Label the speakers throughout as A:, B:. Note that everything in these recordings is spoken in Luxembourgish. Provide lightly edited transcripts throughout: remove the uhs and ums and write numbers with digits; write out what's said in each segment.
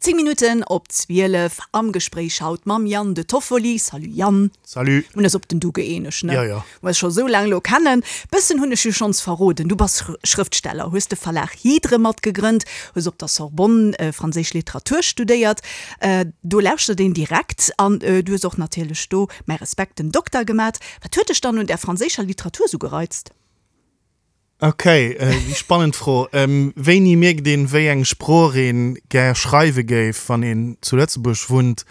A: 10 Minutten op 12 am Gespréich haut mam Yann De Toffoli. Salut Yann.
B: Salut.
A: Mir hunn eis op den Du gëeenegt, ne?
B: Jo, jo.
A: Mer eis scho sou laang elo kennen. Bëssen hunn ech jo schonns verroden. Du bass Schrëftsteller, hues de Verlag Hydre matgegrënnt, hues op der Sorbonne franséisch Literatur studéiert. Do lauschtert een direkt. An du hues och natierlech do, mäi Respekt, den Dokter gemat. Wat huet dech dann un där franséischer Literatur sou gereizt?
B: Ok, déi spannend Fro. Wéini mierkt een, wéi eng Sprooch een gär schreiwe géif, wann een zu Lëtzebuerg wunnt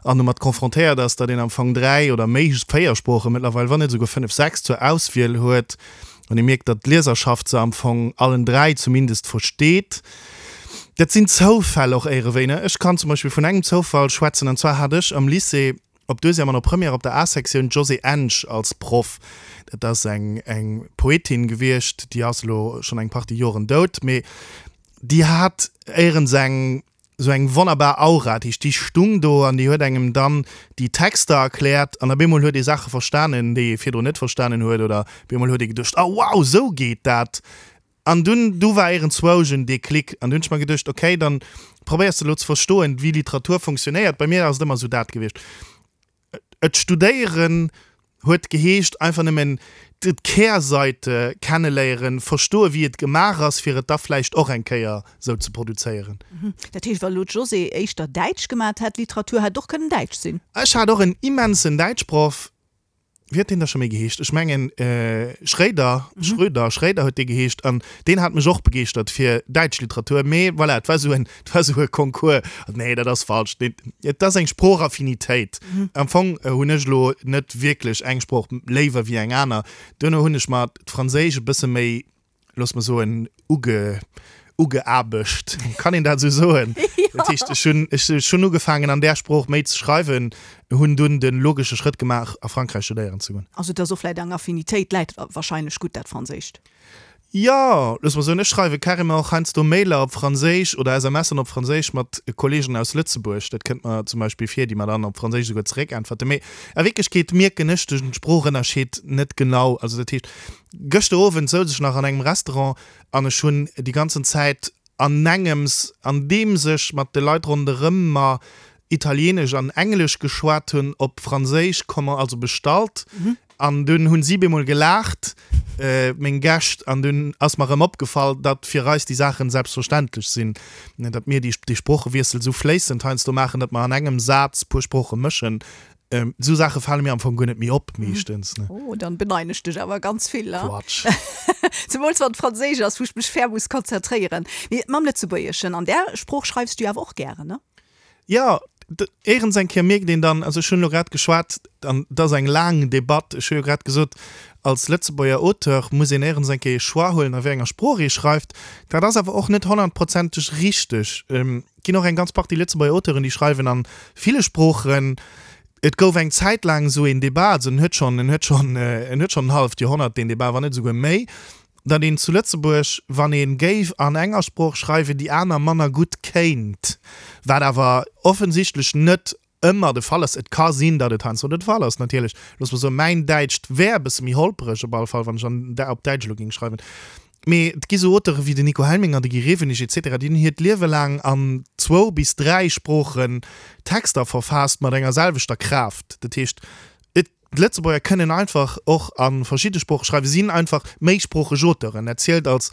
B: an domat confrontéiert ass, datt een am Fong 3 oder méi, 4 Sprooche mëttlerweil, wann net esouguer 5, 6 zur Auswiel huet, wann ee mierkt, datt d'Lieserschaft se am Fong allen 3 zumindest versteet? Dat sinn Zoufäll och éierewéi, ne? Ech kann zum Beispill vun engem Zoufall schwätzen, an zwar hat ech am Lycée, Op Deuxième an op Première op der A-Sektioun d'Josée Ensch als Proff. Dat ass eng eng Poetin gewiescht, déi ass elo schonn eng Partie Joren dout, mee déi hat éierens eng esou eng wonnerbar Aura. Dat heescht, déi stung do an déi huet engem dann déi Texter erkläert an op eemol huet ee Saache verstanen, déi ee virdrun net verstanen huet oder op eemol huet ee geduecht, Oh wow, esou geet dat! An dunn, du war iergendzwousch en Déclic an du hunn ech mer geduecht, okay, dann probéiers de elo ze verstoen, wéi Literatur funktionéiert. Bei mir ass et ëmmer esou dat gewiescht. Et studéieren huet geheescht einfach nëmmen d'Kehrseite kenneléieren, verstoen, wéi et gemaach ass, fir et da vläicht och eng Kéier esou ze produzéieren.
A: Dat heescht, wa elo d'Josée éischter Däitsch gemat hätt, Literatur hätt och kënnen Däitsch sinn?
B: Ech hat och en immensen Däitschproff. Wéi huet deen da scho méi geheescht? Ech mengen Schréider, Schröder, Schréider huet dee geheescht an deen hat mech och begeeschtert fir däitsch Literatur. Mee voilà, et war esou en, et war esou e Concours. Nee, dat ass falsch. Nee, et ass eng Sproochaffinitéit. Am Fong hunn ech elo net wierklech eng Sprooch léiwer wéi eng aner. Duerno hunn ech mer d'Franséisch e bësse méi looss mer soen, uge, ugeaarbecht. Kann een dat esou soen? Dat heescht, ech hunn, ech hunn ugefaangen an där Sprooch méi ze schreiwen, hunn dunn de logesche Schrëtt gemaach, a Frankräich studéieren ze goen.
A: Also et ass och vläicht eng Affinitéit, läit wahrscheinlech gutt dat Franséischt.
B: Jo, looss mer soen, ech schreiwe carrément och heiansdo Mailer op Franséisch oder SMSen op Franséisch mat Kolleegen aus Lëtzebuerg. Dat kënnt mer zum Beispill vir, déi mer dann op Franséisch esouguer zeréckäntwerten. Mee a Wierklechkeet mierken ech de Sproochënnerscheed net genau. Also dat heescht, Gëschter Owend souz ech nach an engem Restaurant an ech hunn déi ganzen Zäit anengems, andeems ech mat de Leit ronderëm mer Italienesch an Englesch geschwat hunn, op Franséisch commen, also bestallt. An dunn hunn si bemol gelaacht, meng Gäscht, an dunn ass mer erëm opgefall, datt fir eis déi Saachen selbstverständlech sinn, datt mir déi Sproochewiessel esou fléissend heiansdo maachen, datt mer an engem Saz puer Sprooche mëschen. Esou Saache fale mir am Fong guer net méi op, meeschtens.
A: Ne? Oh, dann beneiden ech dech awer ganz vill.
B: Quatsch.
A: Zemools wann et Franséisch ass, wou ech mech fair muss konzentréieren. Mee mam Lëtzebuergeschen, an där Sprooch schreifs du jo awer och gären, ne?
B: Jo, éierens eng Kéier mierkt een dann, also ech hunn elo grad geschwat, an et ass eng laang Debatt, ech hu jo grad gesot, als Lëtzebuerger Auteur muss een éierens eng Kéier ee Choix huelen, a wéi enger Sprooch ee schreift. Dat ass awer och net honnertprozenteg richteg. Et ginn och eng ganz Partie Lëtzebuerger Auteuren, déi schreiwen a ville Sproochen. Et gouf eng Zäit laang esou een Debat, also en huet schonn, en huet schonn, en huet schonn en halleft Joerhonnert, deen Debat, wann net esouguer méi, datt een zu Lëtzebuerg, wann ee géif an enger Sprooch schreiwen, déi aner manner gutt kéint, wat awer offensichtlech net ëmmer de Fall ass. Et ka sinn, datt et heiansdo de Fall ass, natierlech. Looss mer soen, mäin Däitscht wär e bësse méi holpereg op alle Fall, wann ech an, op Däitsch elo géing schreiwen. Mee et gi sou Auteure wéi den Nico Helminger, de Guy Rewenig et cetera, déi hunn hiert Liewe laang an zwou bis dräi Sproochen Texter verfaasst mat enger selwechter Kraaft. Dat heescht, et, d'Lëtzebuerger kënnen einfach och a verschidde Sprooche schreiwen, sinn einfach méisproocheg Auteuren. Dat zielt als,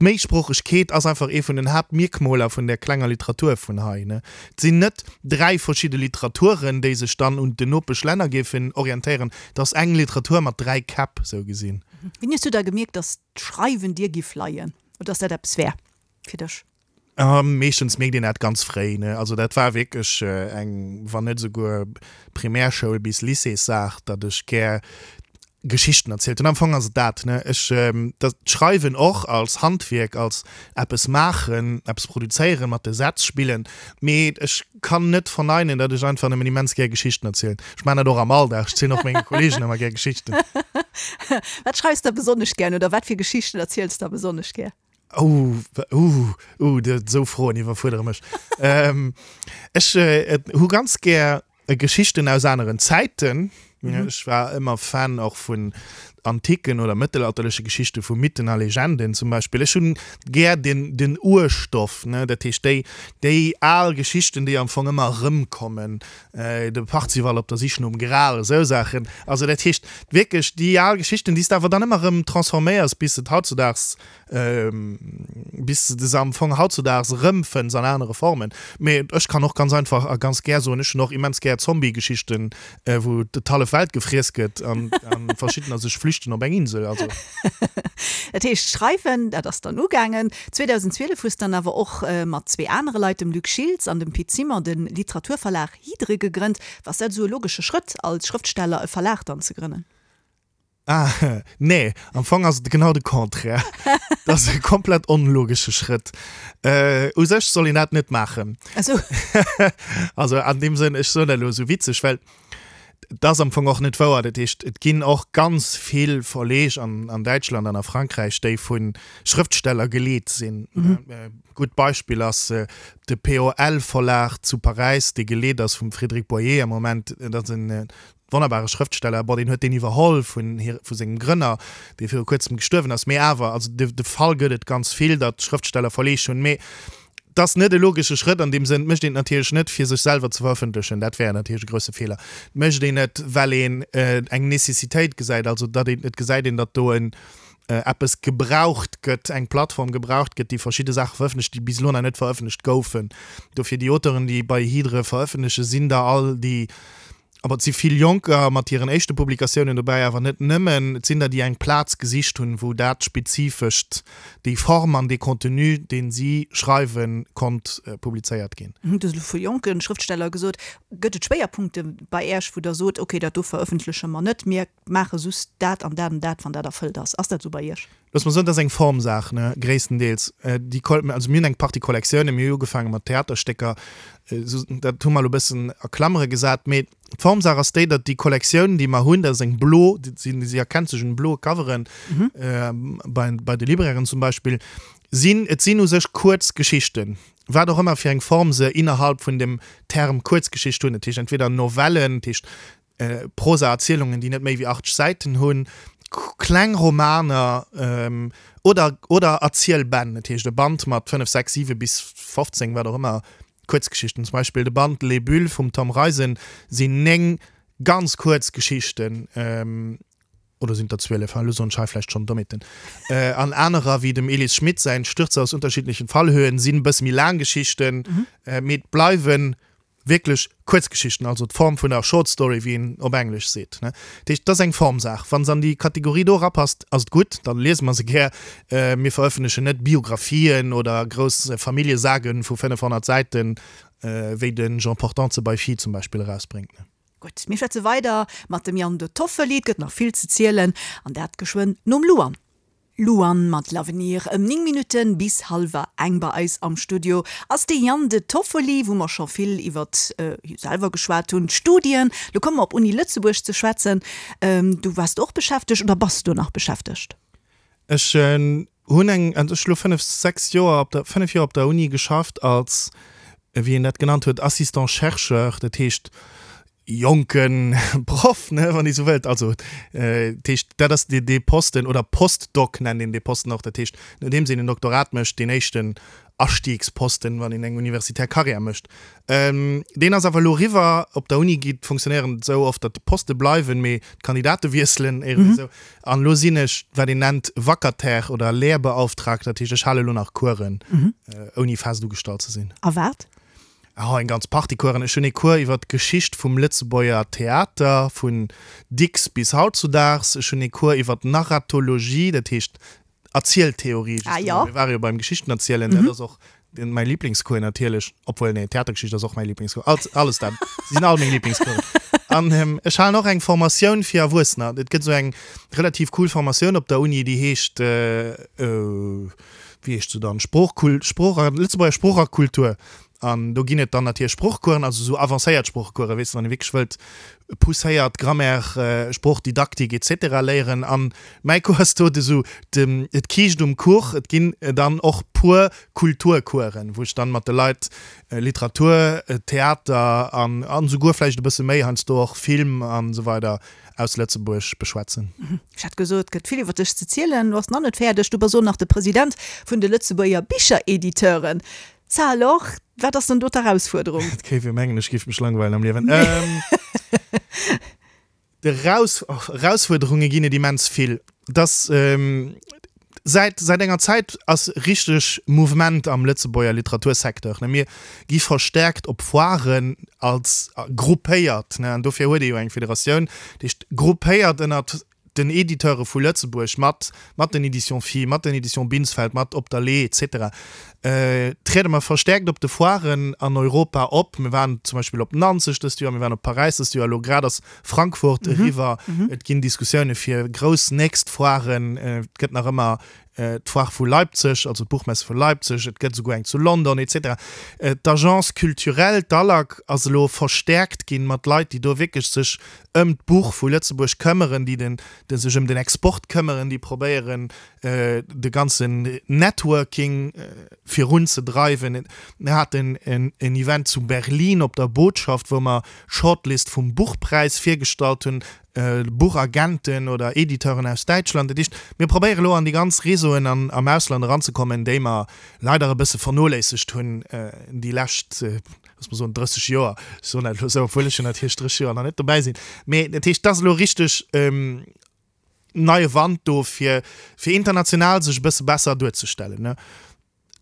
B: d'Méisproochegkeet ass einfach ee vun den Haaptmierkmoler vun där klenger Literatur vun hei. Et sinn net dräi verschidde Literaturen, déi sech dann un den Nopeschlänner géifen orientéieren, et ass eng Literatur mat dräi Käpp, sou gesinn.
A: Wéini hues du da gemierkt, dass d'Schreiwen dir giff leien oder dass dat eppes wär fir dech?
B: Meeschtens mierkt een dat ganz fréi, ne? Also dat war wierklech eng, wann net esouguer Primärschoul bis Lycéessaach, datt ech gär Geschichten erzielt hunn. Am Fong ass et dat, ne? Ech, dat Schreiwen och als Handwierk, als eppes maachen, eppes produzéieren, mat de Sätz spillen, mee ech kann net verneinen, datt ech einfach nëmmen immens gär Geschichten erzielen. Ech maachen dat och am Alldag, ech zielen och menge Kolleegen ëmmer gär Geschichten.
A: Wat schreifs de besonnesch gär oder wat fir Geschichten erziels de besonnesch gär?
B: Oh, uh, uh, esou Froen iwwerfuerdere mech. Ech hu ganz gär Geschichten aus aneren Zäiten. Ech war ëmmer Fan och vun. antiken oder mëttelalterleche Geschichte vu Mythen a Legenden zum Beispill. Ech hunn gär den, den Urstoff, ne, dat heescht déi, déi al Geschichten, déi am Fong ëmmer erëmkommen, de Parzival op der Sich nom Gral, esou Saachen. Also dat heescht wierklech déi al Geschichten, déi s de awer dann ëmmer erëm transforméiers, bis et hautzudaags bis de se am Fong hautzudaags erëmfënns an anere Formen. Mee ech kann och ganz einfach a ganz gär soen, ech hunn och immens gär Zombie-Geschichten, wou d'hallef Welt gefriess gëtt an verschiddener sech flüchten op eng Insel. Also.
A: Dat heescht, schreiwen, dat ass dann ugaangen. 2012 hues dann awer och mat zwee anere Leit, dem Luc Schiltz an dem Pit Simon, de Literaturverlag Hydre gegrënnt. War dat esou e logesche Schrëtt, als Schrëftsteller e Verlag dann ze grënnen?
B: Ah, nee, am Fong ass et genau de Contraire. Dat ass e komplett onlogesche Schrëtt. Äh, u sech soll een dat net maachen.
A: Ach sou.
B: Also an deem Sënn, ech soen dat elo esou witzeg, well dat ass am Fong och net wouer. Dat heescht, et ginn och ganz vill Verleeg an, an Däitschland an a Frankräich, déi vu Schrëftsteller geleet sinn. E gutt Beispill ass de POL-Verlag zu Paräis, dee geleet ass vum Frédéric Boyer am Moment. Dat ass en Wonnerbare Schrëftsteller, bon, deen huet deen iwwerholl vun hir, vu sengem Grënner, dee viru kuerzem gestuerwen ass, mee awer, also de, de Fall gëtt et ganz vill, datt Schrëftsteller Verleeg hunn, mee et ass net e logesche Schrëtt an deem Sënn. Et mécht een et natierlech net, fir sech selwer ze verëffentlechen, dat wär natierlech e grousse Feeler. Et mécht een et, well een eng Necessitéit gesäit, also datt een, et gesäit een, datt do en eppes gebraucht gëtt, eng Plattform gebraucht gëtt, déi verschidde Saache verëffentlecht, déi bis elo nach net verëffentlecht goufen. Dofir déi Auteuren, déi bei Hydre verëffentlechen, sinn der all déi, Awer et si vill Jonker mat hiren éischte Publikatiounen dobäi, awer net nëmmen. Et sinn der, déi eng Plaz gesicht hunn, wou dat Spezifescht, déi Form an dee Contenu, dee si schreiwen, konnt publizéiert ginn.
A: Du hues elo vu jonke Schrëftsteller gesot. Gëtt et Schwéierpunkte bei Äech, wou Der sot, okay, dat do verëffentleche mer net, mir maache just dat an dat an dat, wann dat erfëllt ass? Ass dat esou bei Iech?
B: Looss mer soen, dat ass eng Formsaach, ne, gréisstendeels. Déi Kol-, also mir hunn eng Partie Kollektiounen, mir hu ugefaange mat Theaterstécker, esou, dat hu mer elo e bëssen a Klammere gesat, mee d'Formsaach ass déi, datt déi Kollektioun, déi mer hunn, dat ass eng blo, déi sinn, si erkennt sech un bloe Coveren, bei, bei de Librairen zum Beispill, sinn, et sinn u sech kuerz Geschichten, wat och ëmmer fir eng Form se innerhalb vun dem Term Kuerzgeschicht hunn, dat heescht entweder Novellen, dat heescht Prosa-Erzielungen, déi net méi wéi 80 Säiten hunn, kleng Romaner oder, oder Erzielbänn, dat heescht e Band mat 5, 6, 7 bis 15, wat och ëmmer, Kuerzgeschichten. Zum Beispill de Band Les Bulles vum Tom Reisen sinn 9 ganz kuerz Geschichten, oder sinn et der 12, ha, elo soen ech hei vläicht schonn Dommheeten. An anerer, wéi dem Elis Schmit säin Stürze aus unterschiedlichen Fallhöhen, sinn e bësse méi laang Geschichten, mee et bleiwen Wierklech Kuerzgeschichten, also d'Form vun der Short Story, wéi een op Englesch seet. Dat heescht, et ass eng Formsaach. Wa se an déi Kategorie do erapasst, ass et gutt, da liese mer se gär. Mir verëffentlechen net Biographien oder grouss Familljesagaen vu 500 Säiten, wéi de Jean Portante se bei Phi zum Beispill erausbréngt.
A: Gutt, mir schwätze weider mat dem Yann De Toffoli. Et gëtt nach vill ze zielen, an dat geschwënn nom Luan. Luan mat L'avenir ëm 9 Minutten bis hallwer eng. Bei eis am Studio ass de Yann De Toffoli, wou mer scho vill iwwert hie selwer geschwat hunn, d'Studien. Lo komme mer op Uni Lëtzebuerg ze schwätzen. Du waars do och beschäftegt oder bass do nach beschäftegt?
B: Ech hunn eng, also ech hu lo 5, 6 Joer op der, 5 Joer op der Uni geschafft als, wéi een dat genannt huet, Assistant chercheur. Dat heescht, jonke Proff, ne, wann ee sou wëllt. Also, dat heescht, dat ass dee, dee Posten, oder Postdoc nennt een dee Posten och, dat heescht, nodeems een en Doktorat mécht, deen éischten Astiegsposten, wann een eng universitär Karriär mécht. Deen ass awer elo eriwwer. Op der Uni geet, funktionéieren et esou oft, datt d'Poste bleiwen, mee d'Kandidate wiesselen, iergendwéi esou. An elo sinn ech, wat een nennt, Vacataire oder Lehrbeauftragter, dat heescht, ech hale elo nach Coursen, ouni fest ugestallt ze sinn.
A: A wat?
B: Oh, eng ganz Partie Coursen. Ech hunn ee Cours iwwer d'Geschicht vum Lëtzebuerger Theater, vun Dicks bis hautzudaags. Ech hunn ee Cours iwwer d'Narratologie, dat heescht Erzieltheorie,
A: Ah, jo.
B: justement. Mir ware jo beim Geschichtenerzielen, dat ass och den, mäi Liblingscours natierlech. Obwuel, nee, Theatergeschicht ass och mäi Liblingscours. Alt, alles dat. Se sinn all meng Liblingscoursen. An ech halen och eng Formatioun fir Erwuessener. Et gëtt esou eng relativ cool Formatioun op der Uni, déi heescht, wéi heescht se dann, Sproochkul-, Sprooch a, Lëtzebuerger Sprooch a Kultur. An do ginn et dann natierlech Sproochcoursen, also esou avancéiert Sproochcoursen, weess de, wann ee wierklech wëllt pousséiert Grammaire, Sproochdidaktik et cetera léieren. An mäi Cours ass do esou de, d'Kiischt um Kuch. Et ginn dann och puer Kulturcoursen, wou ech dann mat de Leit Literatur, Theater an an esouguer vläicht e bësse méi heiansdo och Film an esou weider aus Lëtzebuerg beschwätzen.
A: Ech hat gesot, et gëtt vill iwwer dech ze zielen. Du bass nach net fäerdeg, du bass och nach de President vun de Lëtzebuerger Bicherediteuren. Ça alors, wat ass dann do d'Erausfuerderung?
B: Et kéif ee mengen, ech géif mech langweilen am Liewen. D'Erausfuerderunge ginn et immens vill. Dass säit säit enger Zäit ass richteg Mouvement am Lëtzebuerger Literatursecteur. Mir gi verstärkt op Foiren als gruppéiert, an dofir huet ee jo eng Federatioun, déi gruppéiert ënnert den Editeure vu Lëtzebuerg, mat mat den Éditions Phi, mat den Éditions Binsfeld, mat Op der Lee et cetera, triede mer verstärkt op de Foiren an Europa op. Mir waren zum Beispill op Nanzeg dëst Joer, mir waren op Paräis dëst Joer, elo grad ass Frankfurt eriwwer. Et ginn Diskussioune fir grouss nächst Foiren. Et gëtt nach ëmmer d'Foire vu Leipzig, also d'Buchmesse vu Leipzig, et gëtt esouguer eng zu London et cetera. D'Agence culturelle, d'ALAC, ass elo verstäerkt ginn mat Leit, déi do wierklech sech ëm d'Buch vu Lëtzebuerg këmmeren, déi den, déi sech ëm den Export këmmeren, déi probéieren, de ganzen Networking virunzedreiwen. Mir haten en Event zu Berlin op der Botschaft, wou mer d'Shortlist vum Buchpräis virgestallt hunn, Buchagenten oder Editeuren aus Däitschland. Dat heescht, mir probéiere elo an déi ganz Réseauen an am Ausland eranzekommen, déi mer leider e bësse vernoléissegt hunn déi lescht, looss mer soen, 30 Joer. Ech soen dat elo esou, obwuel ech jo natierlech 30 Joer nach net dobäi sinn. Mee dat heescht, et ass elo richteg neie Wand do, fir fir international sech e bësse besser duerzestellen.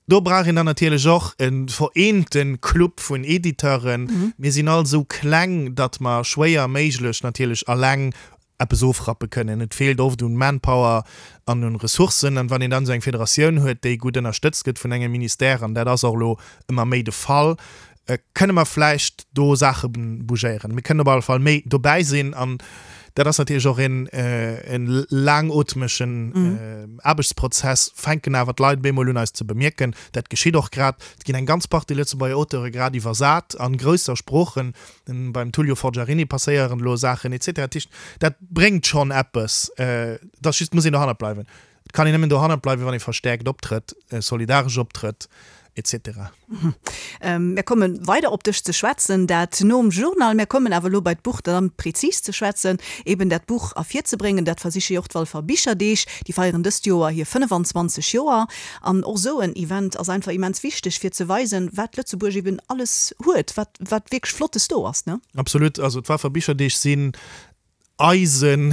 B: Do brauch een dann natierlech och e vereente Club vun Editeuren. Mir sinn all esou kleng, datt mer schwéier méiglech natierlech alleng eppes ofrappe kënnen. Et feelt oft un Manpower an un Ressourcen. An wann een dann esou eng Federatioun huet, déi gutt ënnerstëtzt gëtt vun engem Ministère, an dat ass och elo ëmmer méi de Fall, kënne mer vläicht do Saache bougéieren. Mir kënnen op alle Fall méi dobäi sinn an dat ass natierlech och een e laangootmegen Aarbechtsprozess. Fänken awer d'Leit bemol un eis ze bemierken. Dat geschitt och grad. Et ginn eng ganz Partie Lëtzebuerger Auteure grad iwwersat an grousser Sproochen. Beim Tullio Forgiarini passéieren elo Saachen et cetera. Dat heescht, dat bréngt schonn eppes. Et ass just, et muss een dohannert bleiwen. Et kann een nëmmen dohannert bleiwen, wann ee verstäerkt optrëtt, solidaresch optrëtt, et cetera.
A: Mir komme weider op dech ze schwätzen, dat nom Journal. Mir kommen awer elo bei d'Buch dann prezis ze schwätzen, eben dat Buch ervirzebréngen. Dat versiche jo och d'Walfer Bicherdeeg. Déi feieren dëst Joer hir 25 Joer. An och esou en Event ass einfach immens wichteg, fir ze weisen, wat Lëtzebuerg eben alles huet, wat, wat wierklech Flottes do ass, ne?
B: Absolut. Also d'Walfer Bicherdeeg sinn Eisen,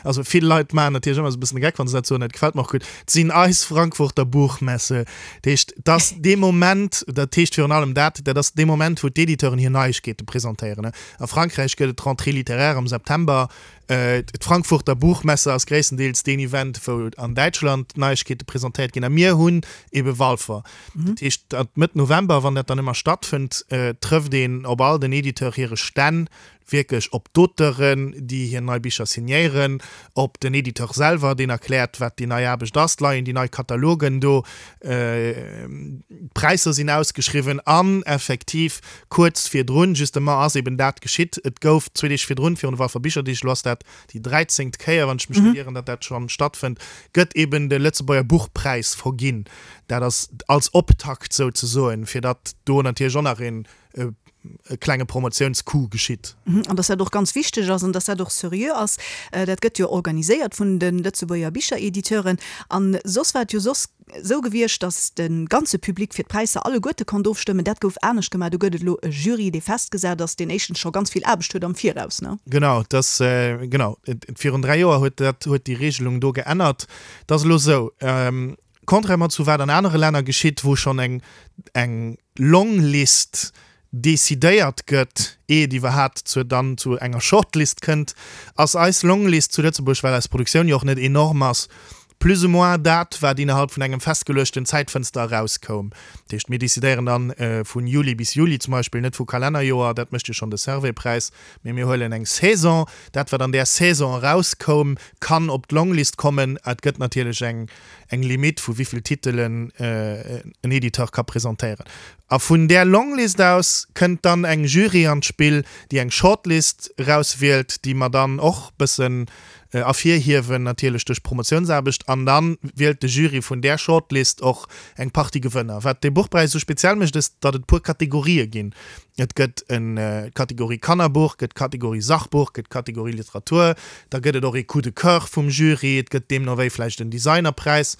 B: also vill Leit maachen natierlech ëmmer esou e bëssen de Geck, wann se dat soen, dat gefält mer och gutt, et sinn eis Frankfurter Buchmesse. Dat heescht, et ass dee Moment, dat heescht virun allem dat, dat ass dee Moment, wou d'Editeuren hir Neiegkeete presentéieren. A Frankräich gëtt et d'Rentrée littéraire am September. D'Frankfurter Buchmesse ass gréisstendeels deen Event, wou an Däitschland d'Neiegkeete presentéiert ginn. A mir hunn ebe Walfer. Dat heescht, datt Mëtt November, wann dat dann ëmmer stattfënnt, trëfft een op all den Editeur hire Stänn wierklech op d'Auteuren, déi hir nei Bicher signéieren, op den Editeur selwer, deen erkläert, wat déi nei Aarbecht ass, et leien déi nei Katalogen do, d'Präisser sinn ausgeschriwwen an effektiv kuerz virdrun justement ass eben dat geschitt, et gouf zwee Deeg virdrun, virun de Walfer Bicherdeeg, elo ass dat déi dräizéngt Kéier, wann ech mech net ieren, datt dat schonn stattfënnt, gëtt eben de Lëtzebuerger Buchpräis verginn. Dat ass als Optakt souzesoen, fir datt do natierlech och nach een e klenge Promotiounscoup geschitt.
A: An dass dat och ganz wichteg ass an dass dat och seriö ass. Dat gëtt jo organiséiert vun de Lëtzebuerger Bicherediteuren. A soss war et jo soss esou gewiescht, dass de ganze Public fir d'Präisser alleguerte konnt ofstëmmen. Dat gouf anescht gemaach. Do gëtt et elo e Jury, dee festgesat ass, deen éischtens scho ganz vill Aarbecht huet am Viraus, ne?
B: Genau, dass, genau. Virun 3 Joer huet dat, huet déi Regelung do geännert. Et ass elo esou, Contrairement zu wat an anere Länner geschitt, wou schonn eng eng Longlist decidéiert gëtt, eeh et iwwerhat zur dann zu enger Shortlist kënnt, ass eis Longlist zu Lëtzebuerg, well eis Produktioun jo och net enorm ass, Plus ou moins dat, wat innerhalb vun engem festgeluechten Zäitfënster erauskoum. Dat heescht, mir decidéieren dann vun Juli bis Juli zum Beispill, net vu Kalennerjoer, dat mécht jo schonn de Servais-Präis, mee mir huelen eng Saison. Dat, wat an där Saison erauskoum, kann op d'Longlist kommen. Et gëtt natierlech eng eng Limitt, vu wéi vill Titelen en Editeur ka presentéieren. A vun där Longlist aus kënnt dann eng Jury an d'Spill, déi eng Shortlist erauswielt, déi mer dann och bëssen ervirhiewen, natierlech duerch Promotiounsaarbecht. An da wielt de Jury vun där Shortlist och eng Partie Gewënner. Wat dee Buchpräis esou speziell mécht, ass, datt et puer Kategorië ginn. Et gëtt en d'Kategorie Kannerbuch, gëtt d'Kategorie Sachbuch, gëtt d'Kategorie Literatur, da gëtt et och ee Coup de cœur vum Jury, et gëtt deemno wéi vläicht en Designerpräis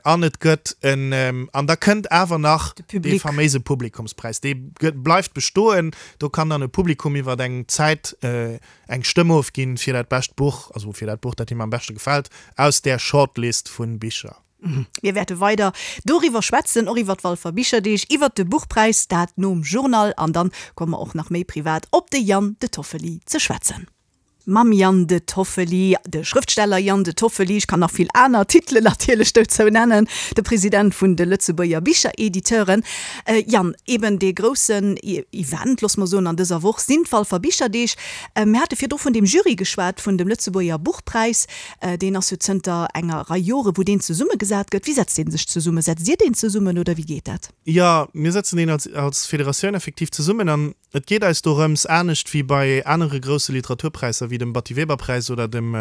B: an et gëtt en, an da kënnt awer nach dee faméise Publikumspräis, dee gëtt, bleift bestoen. Do kann dann e Publikum iwwer eng Zäit eng Stëmm ofginn fir dat bescht Buch, also fir dat Buch, dat him am beschte gefält aus där Shortlist vu Bicher.
A: Mir wäerte weider doriwwer schwätzen, och iwwer d'Walfer Bicherdeeg, iwwer de Buchpräis, dat nom Journal. An dann komme mer och nach méi privat op de Yann De Toffoli ze schwätzen. Mam Yann De Toffoli, de Schrëftsteller Yann De Toffoli, ech kann nach vill aner Titelen natierlech dozou nennen, de President vun de Lëtzebuerger Bicherediteuren. Yann, eben dee groussen Event, loosse mer soen, an dëser Woch sinn d'Walfer Bicherdeeg. Mir hate virdru vun deem Jury geschwat, vun dem Lëtzebuerger Buchpräis. Deen ass jo zënter enger Rei Jore wou deen zesummegesat gëtt. Wéi setzt dee sech zesummen? Setzt Dir deen zesummen oder wéi geet dat?
B: Jo, mir setzen deen als als Federatioun effektiv zesummen an et geet eis dorëms, anescht wéi bei anere grousse Literaturpräisser wéi dem Batty-Weber-Präis oder dem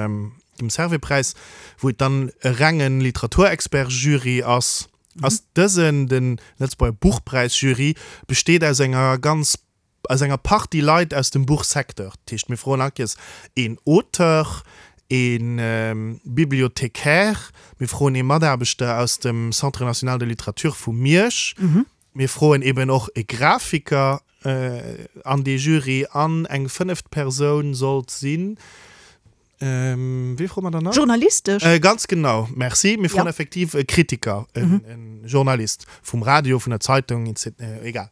B: dem Servais-Präis, wou et dann e renge Literaturexpert-Jury ass, ass dësen, de Lëtzebuerger Buchpräis-Jury, besteet aus enger ganz aus enger Partie Leit aus dem Buchsecteur. Dat heescht, mir froen all Kéiers een Auteur, ee Bibliothécaire, mir froen ee Mataarbechter aus dem Centre national de littérature vu Miersch, mir froen eben och e Grafiker an dee Jury an eng fënneft Persoun sollt sinn, Wéi froe mer dann nach?
A: Journalistesch?
B: Ganz genau, merci. Mir froen effektiv e Kritiker, e Journalist vum Radio, vun der Zeitung, etc. Egal.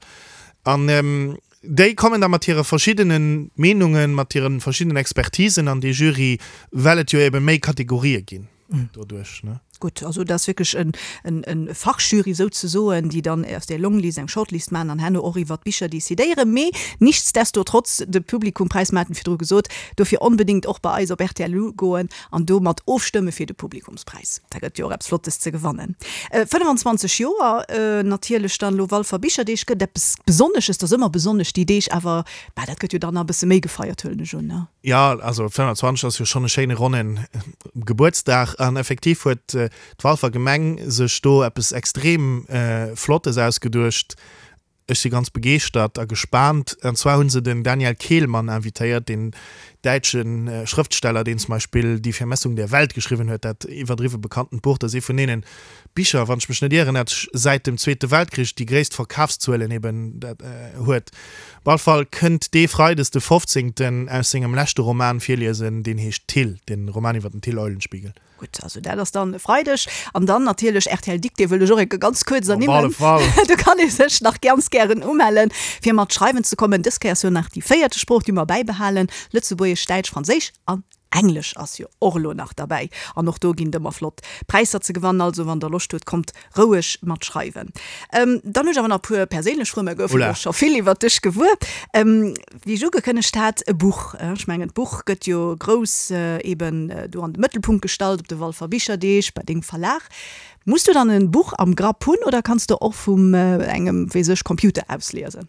B: An déi kommen da mat hire verschiddene Meenungen, mat hire verschiddenen Expertisen an dee Jury, well et jo ebe méi Kategorië ginn doduerch, ne?
A: Gutt, also dat ass wierklech en, en, en Fachjury souzesoen, déi dann aus där Longlist eng Shortlist maachen an herno och iwwert d'Bicher decidéieren. Mee nichtsdestotrotz, de Publikumpräis, mer haten virdru gesot, dofir onbedéngt och bei eis op rtl ugoen an do mat ofstëmme fir de Publikumspräis. Da gëtt jo och eppes Flottes ze gewannen. 25 Joer natierlech dann elo Walfer Bicherdeeg gëtt eppes Besonnesches, dat ass ëmmer besonnesch déi Deeg, awer bah, dat gëtt jo dann nach e bësse méi gefeiert, huelen ech un, ne?
B: Jo, also 25 ass jo schonn e schéine ronnen Gebuertsdag an effektiv huet d'Walfer Gemeng sech do eppes extrem Flottes ausgeduecht. Ech si ganz begeeschtert a gespaant. An zwar hu se den Daniel Kehlmann invitéiert, deen däitsche Schrëftsteller, deen zum Beispill Die Vermessung der Welt geschriwwen huet, dat iwwerdriwwe bekanntent Buch. Dat ass ee vun deene Bicher, wann ech mech net ieren, dat säit dem Zweete Weltkrich déi gréisst Verkafszuelen eben huet. Op all Fall kënnt dee Freides de 15. Aus sengem leschte Roman virliesen, deen heescht Till, den Roman iwwer den Till Eulenspiegel.
A: Gutt, also dat ass dann e Freideg. An dann natierlech rtl Dictée wëll ech och enke ganz kuerz ernimmen.
B: Op alle Fall.
A: Do kann ee sech nach ganz gären umellen, fir mat schreiwen ze kommen. Dës Kéier ass jo nach déi véierte Sprooch, déi mer bäibehalen, Lëtzebuergesch, Däitsch, Franséisch an Englesch ass jo och elo nach derbäi. An och do ginn et ëmmer flott Präisser ze gewannen. Also wann der Loscht hutt, kommt roueg mat schreiwen. Dann hunn ech awer nach e puer perséinlech Froen, mer goufen elo scho vill iwwert dech gewuer. Wéi ech ugekënnegt hat, e Buch. Ech mengen, d'Buch gëtt jo grouss eben do an de Mëttelpunkt gestallt op de Walfer Bicherdeeg bei dengem Verlag. Muss du dann e Buch am Grapp hunn oder kanns de och vum engem, weess ech, Computer aus liesen?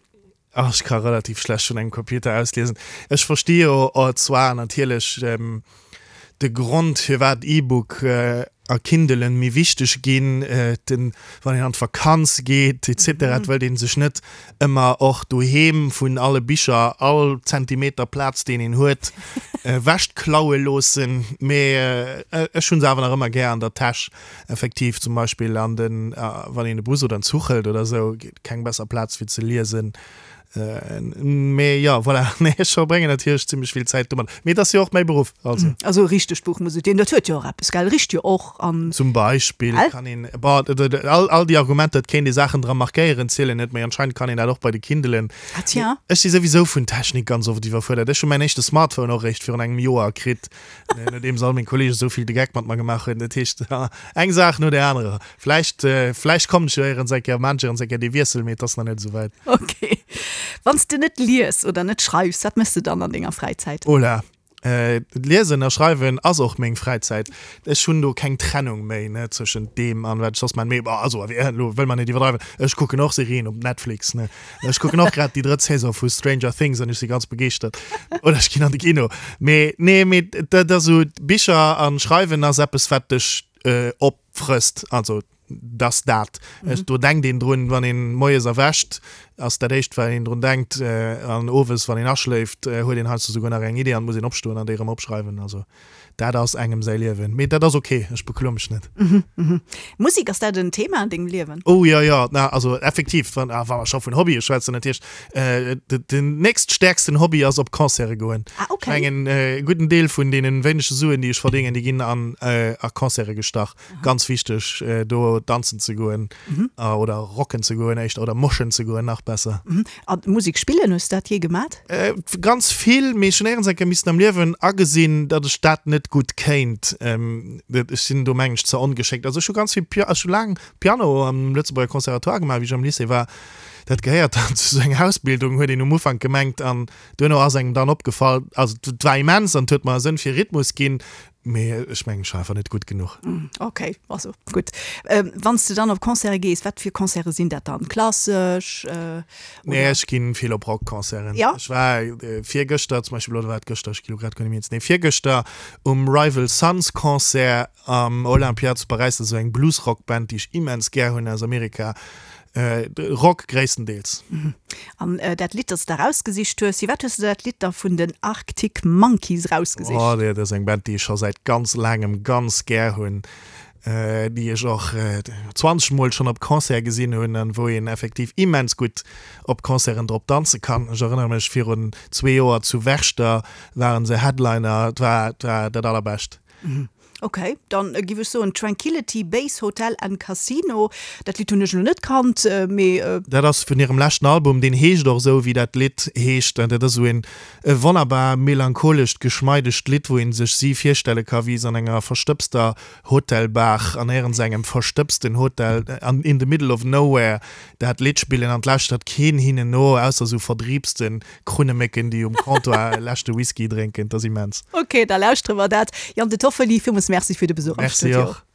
B: Ach, ech ka relativ schlecht vun engem Computer aus liesen. Ech versti jo zwar natierlech de Grond, firwat E-Book a Kindlen méi wichteg ginn, den, wann een an d'Vakanz geet et cetera, et wëllt ee sech net ëmmer och doheem vun alle Bicher all Zentimeter Plaz, deen een huet, ewechklaue loossen. Mee ech hu se awer nach ëmmer gär an der Täsch, effektiv, zum Beispill an den, wann een e Bus oder en Zuch hëlt oder esou, keng besser Plaz fir ze liesen. Mee jo, voilà, nee, ech verbréngen natierlech zimmlech vill Zäit domat. Mee et ass jo och mäi Beruff,
A: also. Also e richtegt Buch muss et ginn. Dat huet jo och eppes, gell? Richt jo och an.
B: Zum Beispill kann een, bon, all, all déi Argumenter, et kéint ee Saachen dra markéieren, zielen net, mee anscheinend kann een dat och bei de Kindelen.
A: Ah tiens.
B: Ech si souwisou vun Technik ganz oft iwwerfuerdert. Ech hu mäin éischte Smartphone och eréischt virun engem Joer kritt, nodeems all meng Kolleegen esou vill de Geck mat mer gemaach hunn. Dat heescht, eng Saach no där anerer. Vläicht, vläicht kommen ech jo éierens eng Kéier, maan ech éierens eng Kéier dee Wiessel, mee et ass nach net esou wäit.
A: Ok. Wann s de net lies oder net schreifs, wat méchs de dann an denger Fräizäit?
B: Ola, Liesen a schreiwen ass och meng Fräizäit. Ech hunn do keng Trennung méi, ne, zwëschent deem an wat ech soss maan. Mee bon, also elo wëll mer net iwwerdreiwen, ech kucken och Serien op Netflix, ne. Ech kucken och grad déi drëtt Saison vu Stranger Things an ech si ganz begeeschtert. Oder ech ginn an de Kino. Mee nee, mee dat ass esou, Bicher an Schreiwen ass eppes, wat dech opfrësst. Also dass dat, ech, do denkt een drun, wann een moies erwächt, ass dat éischt wat een drun denkt, an owes wann een aschléift, huet een heiansdo souguer nach eng Idee an muss een opstoen an déi erëm opschreiwen. Also dat ass engem säi Liewen. Mee dat ass ok, ech bekloe mech net.
A: Musek, ass dat en Thema an dengem Liewen?
B: Oh jo, jo, na also effektiv, wann wa mer scho vun Hobbye schwätzen, dat heescht den nächststäerksten Hobby ass op Concerte goen.
A: Ah ok.
B: Ech mengen e gudden Deel vun deene wéinege Suen déi ech verdéngen, déi ginn an a Concerte gestach. Ganz wichteg do danzen ze goen oder rocken ze goen éischter oder moshen ze goen nach besser.
A: A Musek spillen, hues de dat jee gemat?
B: Ganz vill, mee ech hunn éierens eng Kéier missen am Liewen agesinn, datt ech dat net gutt kéint. Ech sinn do mengen ech ze ongeschéckt. Also ech hu ganz vill Pia, ech hu laang Piano am Lëtzebuerger Conservatoire gemaach wéi ech am Lycée war. Dat gehéiert dann zu sou enger Ausbildung, huet een um Ufank gemengt an duerno ass engem dann opgefall, also et war immens an et huet mer e Sënn fir Rhythmus ginn, Mee ech mengen, ech war einfach net gutt
A: genuch. Ok, also gutt. Wann s de dann op Concerte gees, wat fir Concerte sinn dat dann? Klassesch
B: oder? Nee, ech ginn vill op Rockconcerten.
A: Ja?
B: Ech war virgëschter zum Beispill, oder war et gëschter, ech gi lo grad guer net méi eens, nee virgëschter um Rival Sons Concert am Olympia zu Paräis. Dat ass esou eng Bluesrock-Band, déi ech immens gär hunn aus Amerika. Rock gréisstendeels.
A: An dat Lidd, dat s de erausgesicht hues, firwat hues de dat Lidd da vun den Arctic Monkeys erausgesicht?
B: Oh, dat ass eng Band, déi ech scho säit ganz laangem ganz gär hunn, déi ech och 20 Mol schonn op Concert gesinn hunn an wou een effektiv immens gutt op Concerten drop danze kann. Ech erënnere mech, virun zwee Joer zu Werchter waren se Headliner, et war, et war dat Allerbescht.
A: Ok, dann giff ech soen Tranquility Base Hotel and Casino. Dat Lidd hunn ech elo net kannt, mee.
B: Dat ass vun hirem leschten Album, deen heescht och esou wéi dat Lidd heescht. An dat ass esou een e wonnerbar melancholescht, geschmeidegt Lidd, wou een sech si virstelle ka wéi se an enger verstëbster Hotelbar an éierens engem verstëbsten Hotel an in the middle of nowhere dat Lidd spillen an 't lauschtert keen hinnen no, ausser esou verdriibsten Krunnemécken, déi um Comptoir e leschte Whisky drénken. 't ass immens.
A: Ok, da lauschtere mer dat. Yann De Toffoli, villmools Merci fir de Besuch am
B: Studio. Merci och.